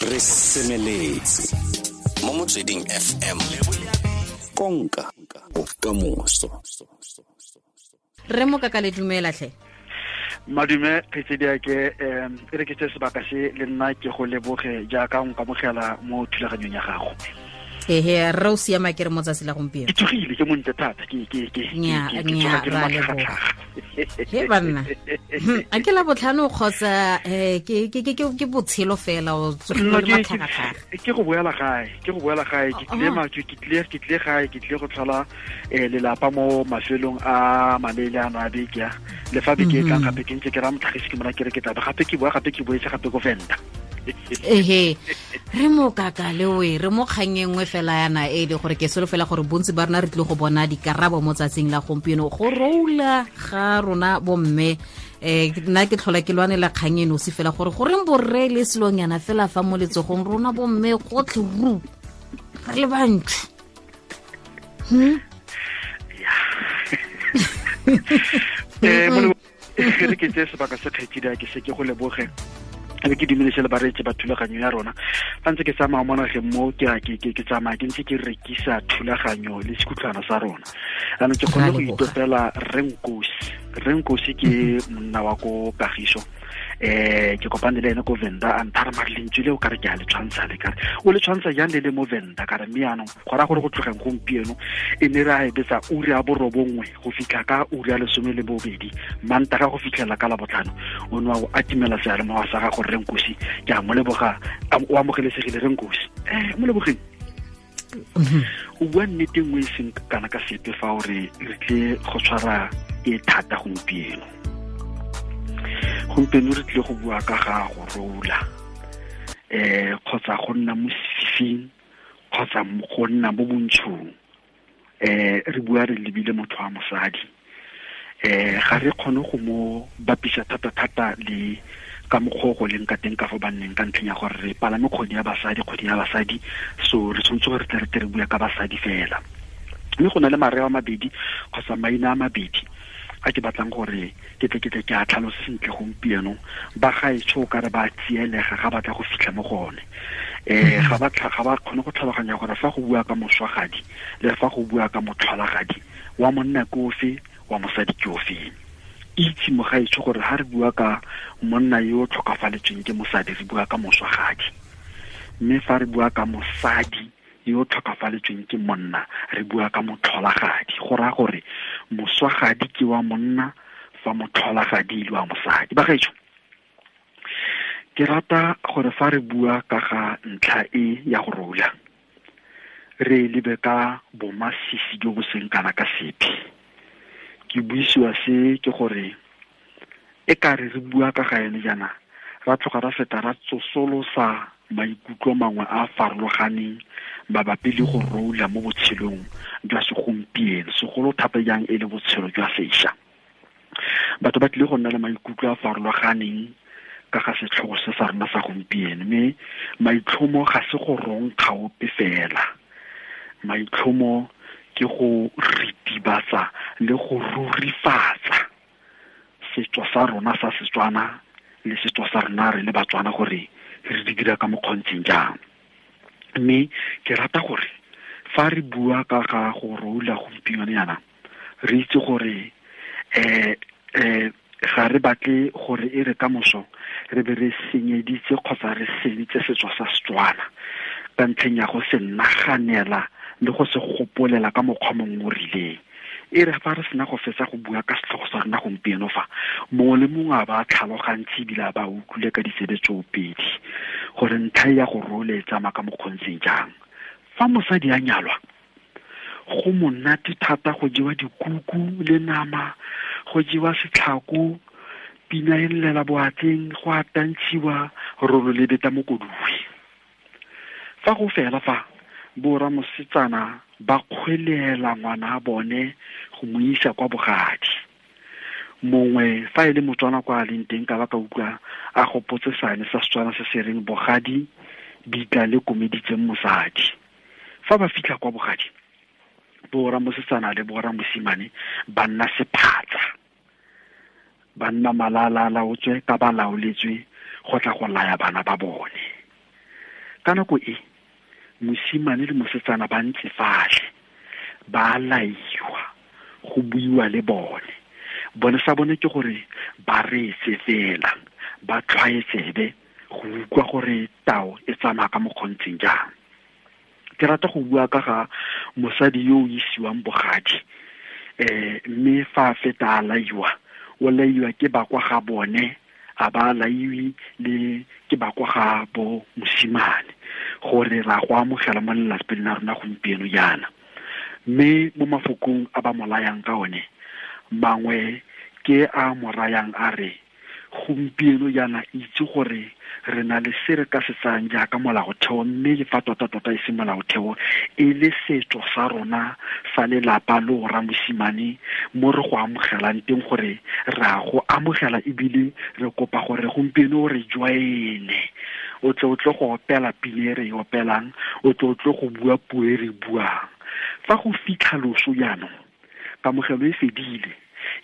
Re semeletse mo Motsweding FM, konka bokamoso. Re Mokaka, le dumela tlhe. Madume kgaitsediake, e re ke tse sebaka se le nna ke go leboge jaaka o nkamogela mo thulaganyong ya gago. Ehe, re o siama ke re mo tsatsi la gompieno. Ke tsogile, ke montle thata, ke Nya, ke nya, tsoga ke le ra leboga. matlhagatlhaga. He banna. A ke la botlhano kgotsa ke botshelo fela o tsogile No, le matlhagatlhaga? Ke go boela gae, ke go boela gae, ke tlile ke tlile, ke tlile gae, ke tlile go tlhola lelapa mo mafelong a maleele ano a beke a. Le fa beke e tlang gape ke ntse ke raya motlhagisi ke mona ke re ke tla be gape ke boa gape ke boetse gape ko Venda. Ehe, re Mokaka le we re mo kgang e nngwe fela yana e le gore ke solofela gore bontsi ba rona re tlile go bona dikarabo mo tsatsing la gompieno go roula ga rona bomme. Nna ke tlhola ke lwanela kgang e nosi fela gore goreng borre le selonyana fela fa mo letsogong rona bomme gotlhe ru re le bantsi. Re ke tseye sebaka se kgaitsedi a ke se ke go leboge, be ke dumedise le bareetsi ba thulaganyo ya rona. Fa ntse ke tsamaya mo nageng mo, ke a ke tsamaya ke ntse ke rekisa thulaganyo le sekhutlwana sa rona. Jaanong ke kgonne go Ra leboga. itopela Rre Nkosi. Rre Nkosi ke monna wa ko Kagiso. Ke kopane le ene ko Venda, a nthara mare lentswe le o kare ke a le tshwantsha le kare o le tshwantsha jang le le mo Venda kare, mme jaanong go raya gore go tlogeng gompieno e ne re a e betsa ura ya 9 go fitlha ka ura ya 12 Mantaga go fitlhela ka Labotlhano, o ne wa go atimela seyalemoya sa gago. Rre Nkosi, ke a mo leboga, o amogelesegile Rre Nkosi. Mo lebogeng. O bua nnete nngwe e seng kana ka sepe fa o re re tle go tshwara e thata gompieno. Gompieno re tlile go bua ka ga go rola, kgotsa go nna mo sefifing kgotsa go nna mo bontshong. Re bua re lebile motho wa mosadi. Ga re kgone go mo bapisa thata-thata le ka mokgwa o go leng ka teng ka fo banneng, ka ntlheng ya gore re palame kgwedi ya basadi, kgwedi ya basadi, so re tshwanetse gore re tle re tle re bua ka basadi fela. Mme go na le mareo a mabedi kgotsa maina a mabedi a ke batlang gore ke tle ke tle ke a tlhalose sentle gompieno. Ba gaetsho o ka re ba tsielega ga batla go fitlha mo go one. Ga ba kgone go tlhaloganya gore fa go bua ka moswagadi le fa go bua ka motlholagadi, wa monna ke ofe, wa mosadi ke ofe. Itse mogaetsho gore ha re bua ka monna yo o tlhokafaletsweng ke mosadi, re bua ka moswagadi, mme fa re bua ka mosadi yo o tlhokafaletsweng ke monna, re bua ka motlholagadi. Go raya gore moswagadi ke wa monna, fa motlholagadi e le wa mosadi. Bagaetsho, ke rata gore fa re bua ka ga ntlha e ya go rola, re lebe ka bomasisi jo bo seng kana ka sepe. Ke buisiwa se ke gore e ka re re bua ka ga yone jaana, ra tloga ra feta ra tsosolosa maikutlo mangwe a a farologaneng mabapi le go rola mo botshelong jwa segompieno, segolo thata jang e le botshelo jwa sešwa. Batho ba tlile go nna le maikutlo a a farologaneng ka ga setlhogo se sa rona sa gompieno, mme maitlhomo ga se go ronkga ope fela. Maitlhomo ke go ritibatsa le go rurifatsa setso sa rona sa Setswana le setso sa rona re le Batswana gore re di dira ka mokgontseng jang. Mme ke rata gore fa re bua ka ga go rola gompieno yana, re itse gore ga re batle gore e re ka moso re be re senyeditse kgotsa re seditse setso sa Setswana ka ntlheng ya go se naganela le go se gopolela ka mokgwa mongwe o rileng. E re fa re sena go fetsa go bua ka setlhogo sa rona gompieno fa, mongwe le mongwe a ba tlhalogantse ebile a ba utlwile ka ditsebe tsoopedi gore ntlha ya go rola e tsamaya ka mokgontseng jang. Fa mosadi a nyalwa, go monate thata go jewa dikuku le nama, go jewa setlhako, pina e llela boatleng, go a tantshiwa, rolo le beta mokoduwe. Fa go fela fa, borra mosetsana ba kgwelela ngwana a bone go mo isa kwa bogadi. Mongwe fa e le Motswana kwa a leng teng ka ba ka utlwa a gopotse seane sa Setswana se se reng bogadi bitla le komeditseng mosadi. Fa ba fitlha kwa bogadi, borra mosetsana le borra mosimane ba nna sephatsa, ba nna malala a laotswe ka ba laoletswe go tla go laya bana ba bone. Ka nako e mosimane le mosetsana ba ntse fatlhe, ba laiwa, go buiwa le bone. Bone sa bone ke gore ba reetse fela, ba tlhwaetsebe go utlwa gore tao e tsamaya ka mokgontseng jang. Ke rata go bua ka ga mosadi yo o isiwang bogadi, mme fa a feta a laiwa, o laiwa ke ba kwa ga bone, a ba laiwe le ke ba kwa ga bo mosimane, gore ra go amogela mo lelapeng la rona gompieno jaana. Mme mo mafokong a ba mo layang ka one, mangwe ke a mo rayang a re, gompieno jaana itse gore re na le se re ka se tsayang jaaka molaotheo, mme le fa tota-tota e se molaotheo, e le setso sa rona sa lelapa le o ramosimane mo re go amogelang teng, gore re a go amogela ebile re kopa gore gompieno re join-e, o tle o tle go opela pina e re e opelang, o tle o tle go bua puo e re buang. Fa go fitlha loso jaanong, kamogelo e fedile.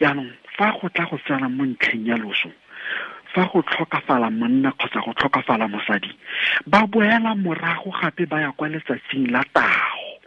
Jaanong fa go tla go tsena mo ntlheng ya loso, fa go tlhokafala monna kgotsa go tlhokafala mosadi, ba boela morago gape ba ya kwa letsatsing la tago,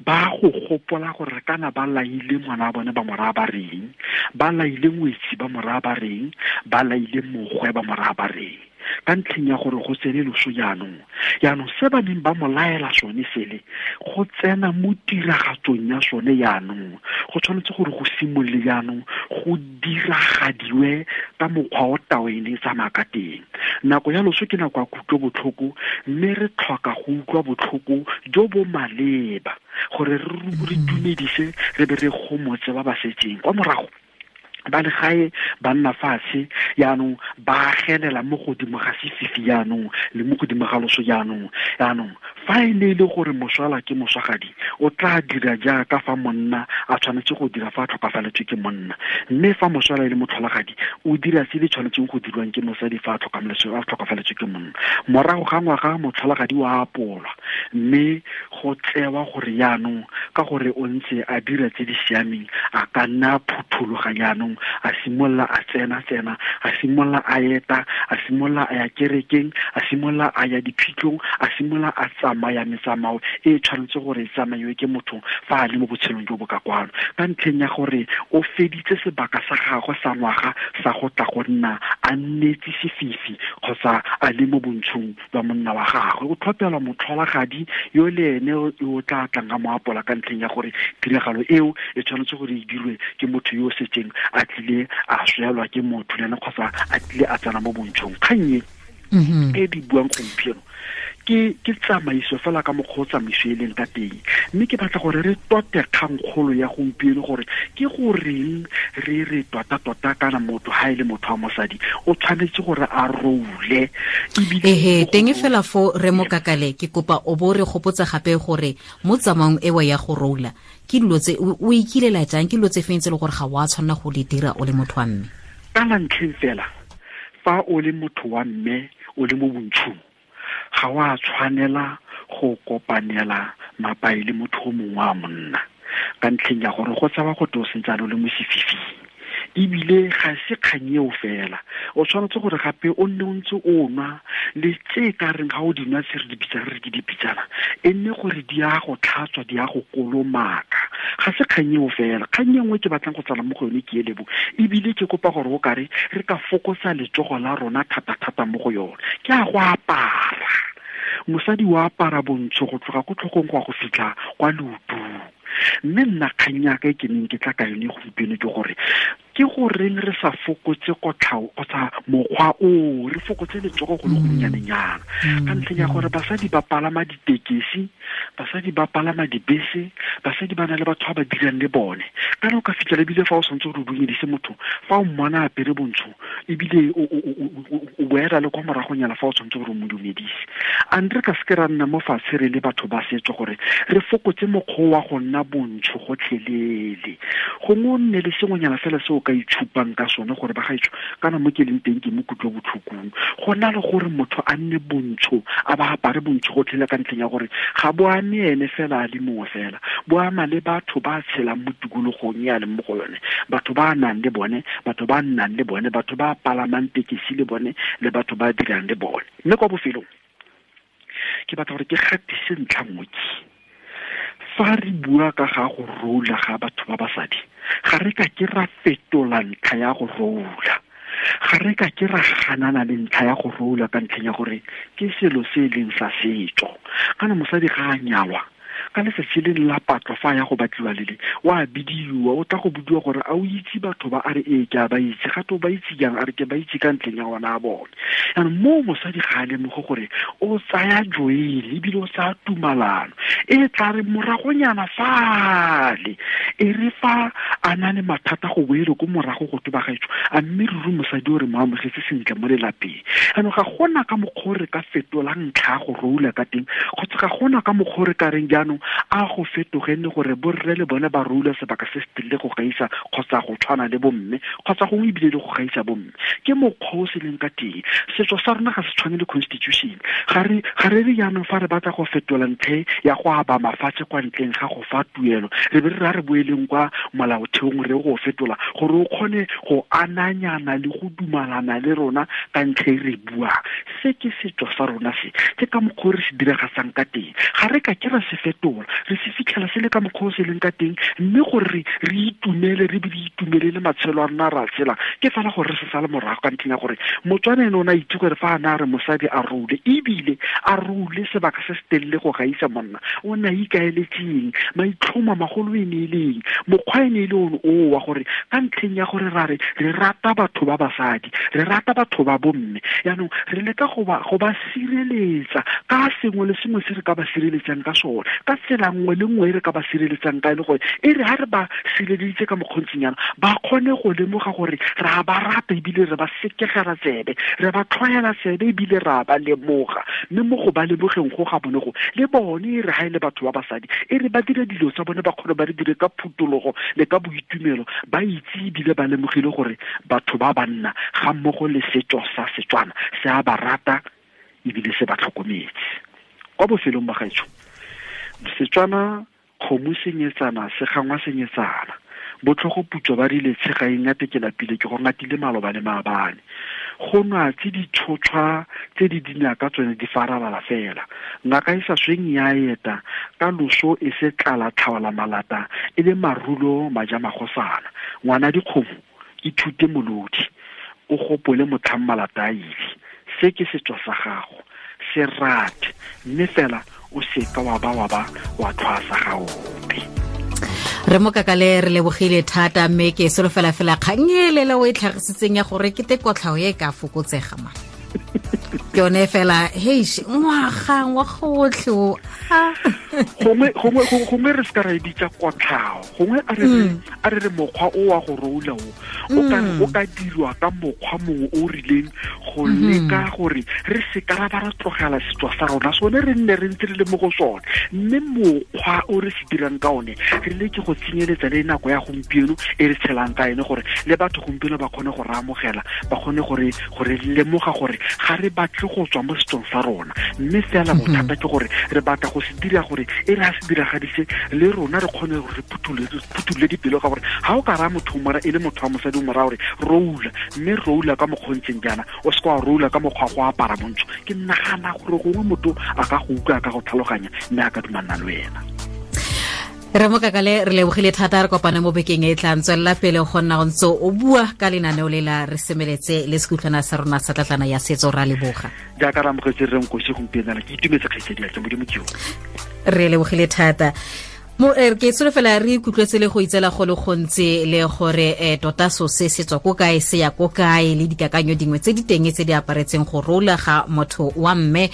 ba go gopola gore kana ba laile ngwana wa bone ba mo raya ba reng, ba laile ngwetsi ba mo raya ba reng, ba laile mogwe ba mo raya ba reng, ka ntlheng ya gore go tsene loso jaanong. Jaanong se ba neng ba mo laela sone sele, go tsena mo tiragatsong ya sone jaanong, go tshwanetse gore go simolole jaanong go diragadiwe ka mokgwa o tao e ne e tsamaya ka teng. Nako ya loso ke nako ya kutlobotlhoko, mme re tlhoka go utlwa botlhoko jo bo maleba gore re dumedise re be re gomotse ba ba setseng kwa morago. Ba le gae ba nna fatshe jaanong, ba agelela mo godimo ga sefifi jaanong le mo godimo ga loso jaanong. Jaanong fa e ne e le gore moswala ke moswagadi, o tla dira jaaka fa monna a tshwanetse go dira fa a tlhokafaletswe ke monna, mme fa moswala e le motlholagadi, o dira se le tshwanetseng go dirwang ke mosadi fa a tlhokafaletswe ke monna. Morago ga ngwaga motlholagadi wa apolwa, mme go tsewa gore jaanong ka gore o ntse a dira tse di siameng, a ka nna a phuthologa jaanong, a simolola a tsena-tsena, a simolola a eta, a simolola a ya kerekeng, a simolola a ya diphitlhong, a simolola a tsamaya metsamao e tshwanetse gore e tsamaiwe ke motho fa a le mo botshelong jo bo ka kwano, ka ntlheng ya gore o feditse sebaka sa gagwe sa ngwaga sa go tla go nna a nnetse sefifi kgotsa a le mo bontshong ba monna wa gagwe. O tlhopelwa motlholagadi yo le ene o tla tlang ka mo apola, ka ntlheng ya gore tiragalo eo e tshwanetse gore e dirwe ke motho yo o setseng a tlile a swelwa ke motho le ene kgotsa a tlile a tsena mo bontshong. Kgang e e di buang gompieno ke tsamaiso fela ka mokgwa o tsamaiso e leng ka teng, mme ke batla gore re tote kgangkgolo ya gompieno gore ke goreng re re tota-tota kana motho ha e le motho wa mosadi o tshwanetse gore a roule. Ehe, teng fela fo re mo kakale, ke kopa o bo re gopotsa gape gore mo tsamaong ewa ya go roula ke dilo tse o ikilela jang, ke dilo tse feng tse le gore ga wa tshwanela go di dira o le motho wa mme? Ka la ntlheng fela, fa o le motho wa mme o le mo bontshong, ga wa tshwanela go kopanela mapai le motho o mongwe wa monna, ka ntlheng ya gore go tsewa go te o sentse a le mo sefifing. Ebile ga se kgang eo fela, o tshwanetse gore gape o nne o ntse o nwa le tse ka reng ga o di nwa tse re di bitsang re ke dipitsana, e nne gore di a go tlhatswa, di a go kolomaka. Ga se kgang eo fela. Kgang e nngwe ke batlang go tsala mo go yone ke e lebo, ebile ke kopa gore o kare re ka fokotsa letsogo la rona thata-thata mo go yone, ke a go apara. Mosadi wa apara bontsho go tloga ko tlhogong go ya go fitlha kwa leotong. Mme nna kgang ya ka e ke neng ke tla ka yone gompieno ke gore ke goreng re sa fokotse kotlhao kgotsa mokgwa o, re fokotse letsogo go le gonnyanenyana, ka ntlheng ya gore basadi ba palama ditekesi, basadi ba palama dibese, basadi ba na le batho ba ba dirang le bone. Kana o ka fitlhela ebile fa o santse o re dumedise motho, fa o mmona a apere bontsho, ebile o boela le kwa moragonyana fa o tshwanetse gore o mo dumedise. A re ka seke ra nna mo fatshe re le batho ba setso gore re fokotse mokgwa wa go nna bontsho gotlhelele. Gongwe o nne le sengwenyana fela se o ka itshupang ka sone gore ba gaetsho kana mo ke leng teng ke mo kutlobotlhokong, go na le gore motho a nne bontsho, a ba apare bontsho gotlhelele ka ntlheng ya gore ga bo ame ene fela a le mongwe fela, bo ama le batho ba tshelang mo tikologong e a leng mo go yone, batho ba nang le bone, batho ba nnang le bone, batho ba palamang tekesi le bone, le batho ba dirang le bone. Mme kwa bofelong Ke batla gore ke gatise ntlha nngwe ke. Fa re bua ka ga go rola ga batho ba basadi, ga re ka ke ra fetola ntlha ya go rola. Ga re ka ke ra ganana le ntlha ya go rola ka ntlheng ya gore ke selo se e leng sa setso. Kana mosadi ga a nyalwa, ka letsatsi le la patlo fa ya go batliwa lele, wa bidiwa, o tla go budiwa gore a o itse batho ba, a re ee ke a ba itse, gape o ba itse jang, a re ke ba itse ka ntlheng ya ona a bone. Jaanong moo mosadi ga a lemoge gore o tsaya joele ebile o tsaya tumalano e tla re moragonyana fale, e re fa a na le mathata go boele ko morago go toba gaetsho, a mme ruri mosadi o re mo amogetse sentle mo lelapeng. Jaanong ga gona ka mokgwa o re ka fetolang ntlha ya go roula ka teng, kgotsa ga gona ka mokgwa o re ka reng jaanong a go fetoge nne gore borre le bone ba roula sebaka se se telele go gaisa kgotsa go tshwana le bomme, kgotsa gongwe ebile le go gaisa bomme. Ke mokgwa o se leng ka teng. Setso sa rona ga se tshwane le constitution. Ga re re jaanong fa re batla go fetola ntlha ya go aba mafatshe kwa ntleng ga go fa tuelo, re be re ra re boeleng kwa molaotheong re go fetola gore o kgone go ananyana le go dumalana le rona ka ntlha e re buang. Se ke setso sa rona se, ke ka mokgwa o re se diragatsang ka teng. Ga re ka ke ra se fetola, re se fitlhela se le ka mokgwa o se leng ka teng, mme gore re itumele, re be re itumelele matshelo a rona ra tshela, ke fela gore re se sale morago ka ntlheng ya gore Motswana ene o ne a itse gore fa a ne a re mosadi a role, ebile a role sebaka se se telele go gaisa monna, o ne a ikaeletseng, maitlhomo a magolo e ne e leng, mokgwa e ne e le one oo wa gore ka ntlheng ya gore ra re re rata batho ba basadi, re rata batho ba bomme, jaanong re leka go ba sireletsa ka sengwe le sengwe se re ka ba sireletsang ka sone, ka tsela nngwe le nngwe e re ka ba sireletsang ka e le gore e re ha re ba sireleditse ka mokgontsinyana, ba kgone go lemoga gore re a ba rata ebile re ba sekegela tsebe, re ba tlhwaela tsebe ebile re a ba lemoga. Mme mo go ba lemogeng go ga bone go, le bone e re ha e le batho ba basadi, e re ba dire dilo tsa bone ba kgone ba re dire ka phutologo le ka boitumelo, ba itse ebile ba lemogile gore batho ba banna ga mmogo le setso sa Setswana se a ba rata ebile se ba tlhokometse. Kwa bofelong ba gaetsho, Setswana kgomo senyetsana se gangwa senyetsana, botlhogo putswa ba rile tshega e ngate ke lapile ke go ngatile maloba le maabane. Go nwa tse di tshotshwa tse di dinaka tsone di faralala fela. Ngaka e sa sweng ya eta ka loso e se tlala tlhaola malata e le marulo maja magosana. Ngwana dikgomo ithute molodi, o gopole motlhang malata a ile. Se ke setso sa gago, se rate, mme fela o seka wa ba wa tlhwasa ga ope. Re mo kakale re lebogile thata, mme ke solofela fela kgang e lele o e tlhagisitseng ya gore ke te kotlhao e ka fokotsega ma. Ke yone fela, heish, ngwaga otlhe o. Gongwe re se ka ra e bitsa kotlhao, gongwe a re mokgwa o wa go roula o o ka dirwa ka mokgwa mongwe o rileng go leka gore re se ka ra ba ra tlogela setso sa rona sone, re nne re ntse re le mo go sone, mme mokgwa o re se dirang ka one re leke go tsenyeletsa le nako ya gompieno e re tshelang ka ene, gore le batho gompieno ba kgone go re amogela, ba kgone gore lemoga gore ga re batle go tswa mo setsong sa rona, mme fela bothata ke gore re batla go se dira gore e re a se diragadise le rona re kgone gore re phuthulle dipelo, ka gore ga o ka raya motho e le motho wa mosadi o mo raya gore roula, mme roula ka mokgontseng jaana, o se ka wa roula ka mokgwa go apara montsho. Ke nagana gore gongwe motho a ka go utlwa, a ka go tlhaloganya, mme a ka dumalana le wena. Re mo kakale re lebogile thata, re kopane mo bekeng e tlang. Tswelela pele go nna o ntse o bua ka lenaneo le la re semeletse le sekutlwana sa rona sa tlatlana ya setso. Ra leboga jaaka re amogetse re nkosi gompieno, ke itumetse kgaitsedi ya ke Modimo ke yo. Re lebogile thata. Mo ke solofela re ikutlwetse le go itsela go le gontsi le gore tota so se se tswa ko kae, se ya ko kae, le dikakanyo dingwe tse di teng tse di aparetseng go rola ga motho wa mme.